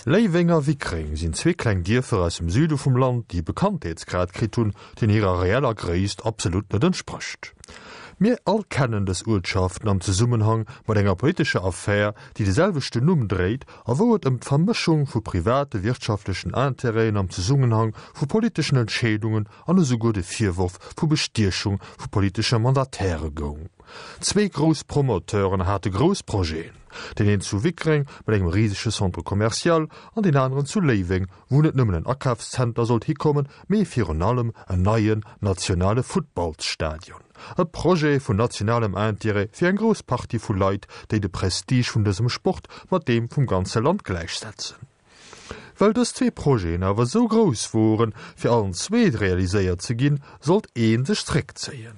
Léiweng a Wickreng sinn zwee kleng Dierfer aus dem Süde vum Land, déi e Bekanntheetsgrad kritt hunn, deen hirer reeller Gréisst absolut net entsprécht. Mir all kennen dës Uertschaften am Zesummenhang mat enger politescher Affär, déi de selwechten Numm dréit a wou et ëm d'Vermëschung vu private wirtschaftlechen Intérêten am Zesummenhang vu politeschen Entscheedungen an esouguer de Virworf vu Bestiechung vu politesche Mandataire goung. Zwee grouss Promoteuren hate grouss Projeten, deen een zu Wickreng mat engem risege Centre commercial an deen aneren zu Léiweng, wou net nëmmen en Akafszenter sollt hikommen, mee virun allem en neien nationale Futtballsstadion. E Projet vun nationalem Intérêt fir eng grouss Partie vu Leit, déi de Prestige vun dësem Sport mat deem vum ganze Land gläichsetzen. Well dës zwee Projeten awer esou grouss woren, fir allen zwee realiséiert ze ginn, sollt ee sech zréckzéien.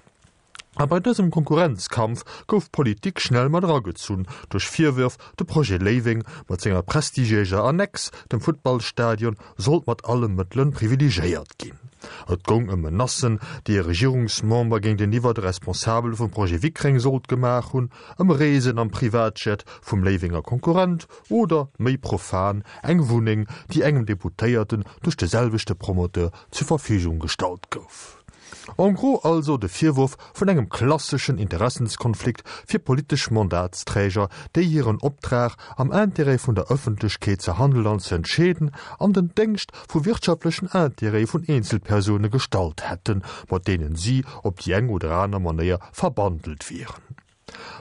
A bei dësem Konkurrenzkampf gouf d'Politik schnell mat eragezunn duerch Virwërf, de Projet Léiweng mat senger prestigiéiser Annex, dem Futtballstadion, sollt mat alle Mëttele privilegiéiert ginn. Et goung ëm Menacen, déi e Regierungsmember géinteniwwer de Responsabele vum Projet Wickreng sollt gemaach hunn, ëm Reesen am Privatjet vum Léiwenger Konkurrent oder, méi profan, eng Wunneng, déi engem Deputéierten duerch de selwechte Promoteur zur Verfügung gestallt gouf. En gros also de Virwurf vun engem klasseschen Interessenskonflikt fir politesch Mandatsträger, déi hiren Optrag, am Intérêt vun der Ëffentlechkeet ze handelen an ze entscheeden, an den Déngscht vu wirtschaftlechen Intérêtë vun Eenzelpersoune gestallt hätten, mat deenen si op déi eng oder aner Manéier verbandelt wieren.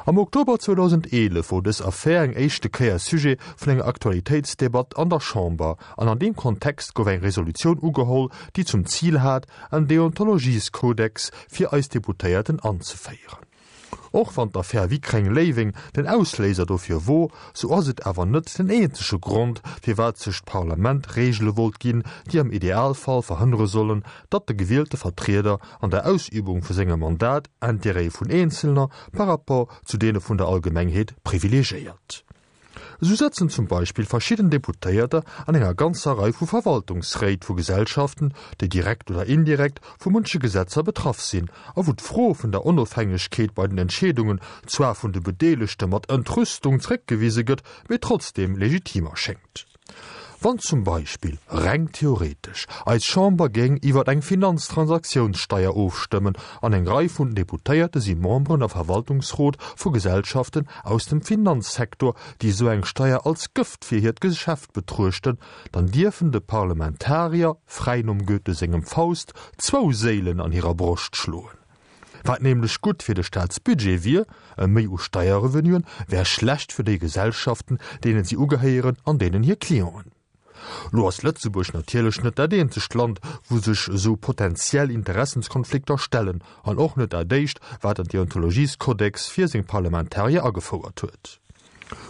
Am Oktober 2011 wor dës Affär eng éischte Kéier Sujet vun enger Aktualitéitsdebatt an der Chamber an an deem Kontext gouf eng Resolutioun ugeholl, déi zum Zil hat, en Deontologieskodex fir eis Deputéierten anzeféieren. Och wann d'Affär Wickreng-Léiweng den Ausléiser dofir wor, sou ass et awer net den eenzege Grond, firwat sech d'Parlament Reegele wollt ginn, déi am Idealfall verhënnere sollen, datt de gewielte Vertrieder an der Ausübung vu sengem Mandat Intérêtë vun Eenzelner par rapport zu deene vun der Allgemengheet privilegiéiert. Esou sëtzen zum Beispill verschidden Deputéierter an enger ganzer Rei vu Verwaltungsréit vu Gesellschaften, déi direkt oder indirekt vu munche Gesetzer betraff sinn a wou d'Fro vun der Onofhängegkeet bei den Entscheedungen zwar vun de Bedeelegte mat Entrüstung zréckgewise gëtt, mee trotzdeem legitim erschéngt. Wann zum Beispill, reng theoretesch, eis Chamber géing iwwer eng Finanztransaktionssteier ofstëmmen an eng Rei vun Deputéierte si Memberen a Verwaltungsrot vu Gesellschaften aus dem Finanzsektor, déi esou eng Steier als Gëft fir hiert Geschäft betruechten, dann dierfen de Parlamentarier, fräi nom Goethe sengem Faust, zwou Séilen an hirer Broscht schloen. Wat nämlech gutt fir de Staatsbudget wier, e Méi u Steierrevenuen, wär schlecht fir déi Gesellschaften, deenen si ugehéieren an deenen hir Clienten. Lo ass Lëtzebuerg natierlech net dat eenzegt Land, wou sech esou potentiell Interessenskonflikter stellen, an och net dat éischt, wat en Deontologieskodex fir seng Parlamentarier agefouert huet.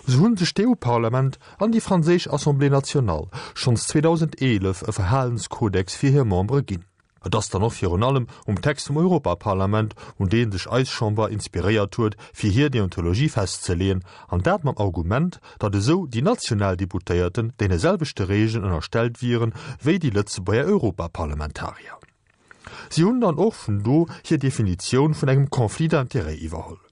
Sou hunn sech d'EU-Parlament an déi franséisch Assemblée nationale schonns 2011 e Verhalenskodex fir hir Membere ginn. Et ass dann och virun allem um Text vum Europaparlament, un dee sech eis Chamber inspiréiert huet, fir hir Deontologie festzeleeën, an dat mam Argument, datt esou déi national Deputéierten deene selwechte Regeln ënnerstellt wieren, wéi déi Lëtzebuerger Europaparlamentarier. Si hunn dann och vun do hir Definitioun vun engem Conflit d'intérêts iwwerholl.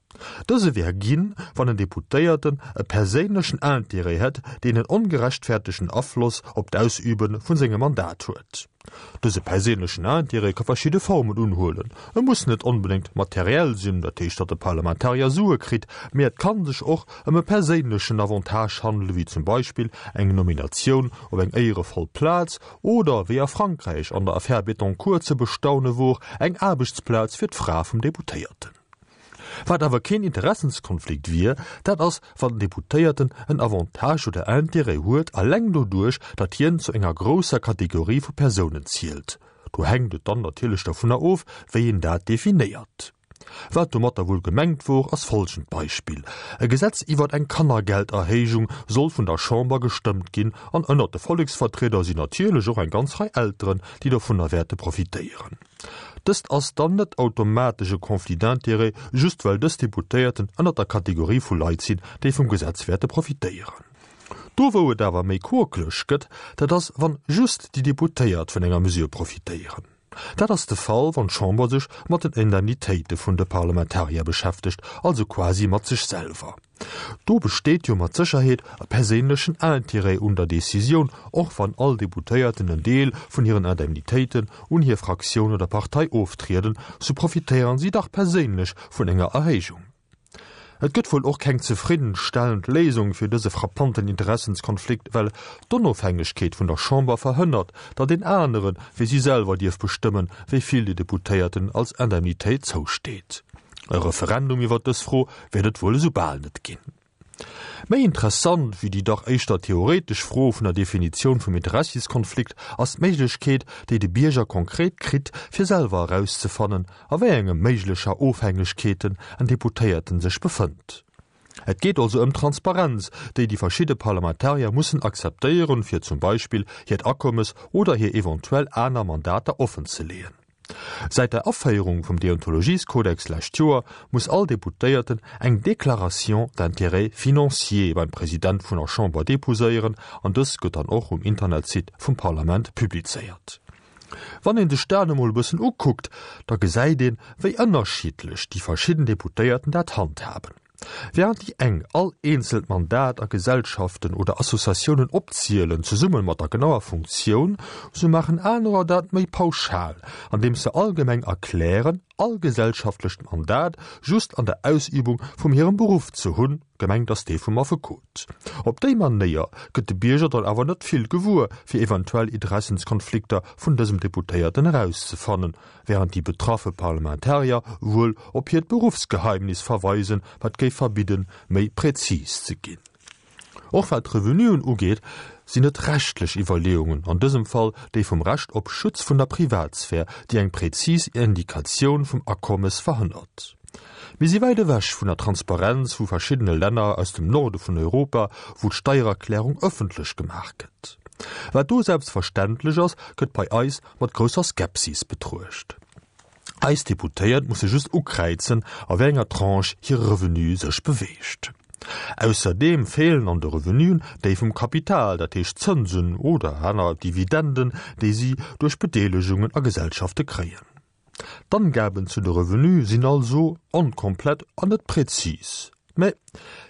Dëse wär ginn, wann en Deputéierten e perséinlechen Intérêt hätt, deen en ongerechtfertegten Afloss op d'Ausübe vun sengem Mandat huet. Dëse perséinlechen Intérêt ka verschidde Formen unhuelen. E muss net onbedéngt materiell sinn, dat heescht, datt e Parlamentarier Sue kritt, mee et ka sech och ëm e perséinlechen Avantage handelen, wéi zum Beispill eng Nominatioun op eng éierevoll Plaz oder, wéi a Frankräich an der Affär Bettencourt ze bestaune wor, eng Aarbechtsplaz fir d'Fra vum Deputéierten. Wat awer keen Interessenskonflikt wier, dat ass, wann den Deputéierten en Avantage oder Intérêt huet, alleng doduerch, datt hien zu enger grousser Kategorie vu Persounen zielt. Do hänkt et dann natierlech dovunner of, wéi een dat definéiert. Wat domatter wuel gemengt wor, ass folgend Beispill, E Gesetz iwwert eng Kannergelderhéijung soll vun der Chamber gestëmmt ginn, an ënnert de Volleksvertrieder sinn natierlech och eng ganz Rei Elteren, déi dovunner wäerte profitéieren. Dëst ass dann net automatesch e Conflit d'intérêts, just well dës Deputéierten ënnert der Kategorie vu Leit sinn, déi vum Gesetz wäerte profitéieren. Do wou et awer méi quokeleg gëtt, dat ass wann just déi Deputéiert vun enger Mesure profitéieren. Dat ass de Fall, wann d'Chamber sech mat den Indemnitéite vun de Parlamentarier beschäftegt, also quasi mat sech selwer. Do besteet jo mat Sécherheet e perséinlechen Intérêt un der Decisioun, och wann all Deputéierten en Deel vun hiren Indemnitéiten un hir Fraktioun oder Partei oftrieden, sou profitéieren si dach perséinlech vun enger Erhéijung. Et gëtt wuel och keng zefriddenstellend Léisung fir dëse frappanten Interessenskonflikt, well d'Onofhängegkeet vun der Chamber verhënnert, datt een anere wéi si selwer dierf bestëmmen, wéi vill de Deputéierten als Indemnitéit zousteet. E Referendum iwwer dës Fro wäert et wuel esou bal net ginn. Méi interessant wéi déi dach éischter theoretesch Fro vun der Definitioun vum Interessiskonflikt ass d'Méiglechkeet, déi de Bierger konkret kritt, fir selwer erauszefannen, a wéi enge méiglecher Ofhängegkeeten en Deputéierten sech befënnt. Et geet also ëm d'Transparenz, déi déi verschidde Parlamentarier mussen akzeptéieren, fir zum Beispill hiert Akommes oder hir eventuell aner Mandater offenzeleeën. Säit der Aféierung vum Deontologieskodex lescht Joer muss all Deputéierten eng Déclaration d'intérêts financiers beim President vun der Chamber deposéieren an dës gëtt dann och um Internetsite vum Parlament publizéiert. Wann een sech dat emol e bëssen ukuckt, da gesäit een, wéi ënnerschiddlech déi verschidden Deputéierten dat handhaben. Während déi eng all eenzelt Mandat a Gesellschaften oder Associatiounen opzielen, zesumme mat der genauer Funktioun, sou maachen anerer dat méi pauschal, andeems se allgemeng erklären, all gesellschaftlecht Mandat just an der Ausübung vum hirem Beruff ze hunn, gemengt ass dee vum Affekot. Op déi Manéier gëtt de Bierger dann awer net vill gewuer, fir eventuell Interessenskonflikter vun dësem Deputéierten erauszefannen, während déi betraffe Parlamentarier wuel op hiert Beruffsgeheimnis verweisen, wat géif verbidden, méi präzis ze ginn. Och wat d'Revenuen ugeet, sinn et rechtlech Iwwerleeungen, an dësem Fall déi vum Recht op Schutz vun der Privatsphär, déi eng präzis Indikatioun vum Akommes verhënnert. Mir si wäit ewech vun der Transparenz vu verschiddene Länner aus dem Norde vun Europa, wou d'Steiererklärung ëffentlech gemaach gëtt. Wat do selbstverständlech ass, gëtt bei eis mat grousser Skepsis betruecht. Eis Deputéiert musse just ukräizen, a wéi enger Tranche hire Revenu sech beweegt. Ausserdeem feelen an de Revenuen déi vum Kapital, dat heescht Zënsen oder aner Dividenden, déi si duerch Bedeelegungen a Gesellschafte kréien. D'Angaben zu de Revenue sinn also onkomplett an net präzis. Mä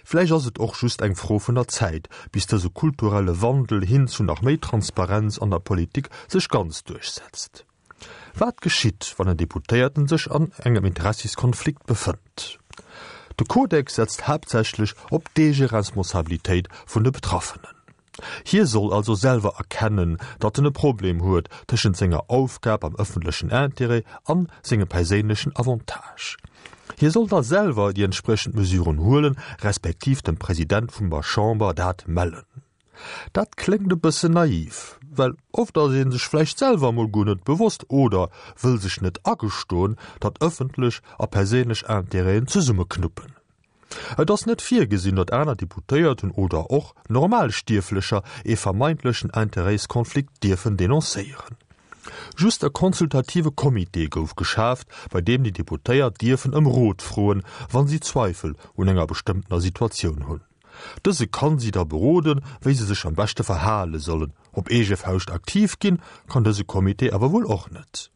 vläicht ass et och just eng Fro vun der Zäit, bis dëse kulturelle Wandel hin zu nach méi Transparenz an der Politik sech ganz duerchsetzt. Wat geschitt, wann en Deputéierten sech an engem Interessiskonflikt befënnt? De Kodex setzt haaptsächlech op d'Eegeresponsabilitéit vun de Betraffenen. Hie soll also selwer erkennen, datt en e Problem huet tëschent senger Aufgab am ëffentlechen Intérêt an sengem perséinlechen Avantage. Hie soll da selwer déi entspriechend Mesuren huelen, respektiv dem President vum der Chamber dat mellen. Dat kléngt e bëssen naiv, well oft ass ee sech vläicht selwer emol guer net bewosst oder wëll sech net agestoen, datt ëffentlech a perséinlech Intérêten zesummeknuppen. Et ass net virgesinn, datt aner Deputéierten oder och Normalstierflecher ee vermeintlechen Interêtskonflikt dierfen denoncéieren. Just e consultative Comité gouf geschaaft, bei deem déi Deputéiert dierfen ëm Rot froen, wa si Zweifel un enger bestëmmtener Situatioun hunn. Dëse kann si da beroden, wéi se sech am beschte verhale sollen. Op eege Fauscht aktiv ginn, kann dëse Comité awer wuel och net.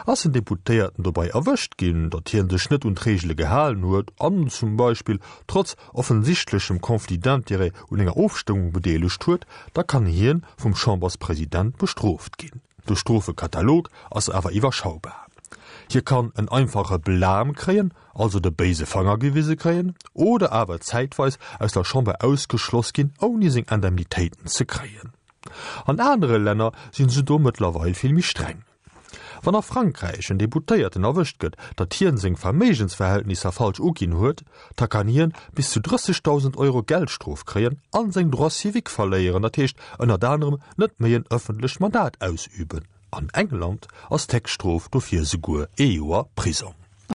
Ass en Deputéierten dobei erwëscht ginn, datt hien sech net un d'Reegele gehalen huet an zum Beispill trotz offensichtlechem Conflit d'intérêts un enger Ofstëmmung bedeelegt huet, da kann hien vum Chamberspresident bestrooft ginn. De Strofekatalog ass awer iwwerschaubar. Hie kann en einfache Blâme kréien, also de béise Fanger gewise kréien, oder awer zäitweis aus der Chamber ausgeschloss ginn, ouni seng Indemnitéiten ze kréien. An anere Länner sinn se do mëttlerweil vill méi streng. Wann a Frankräich en Deputéierten erwëscht gëtt, datt hien seng Verméigensverhältnisser falsch uginn huet, da kann hien bis zu 30.000 Euro Geldstrof kréien an seng Droits civiques verléieren, dat heescht ënnert anerem net méi en ëffentlecht Mandat ausüben. An England ass d'Héchststrof dofir esouguer ee Joer Prisong.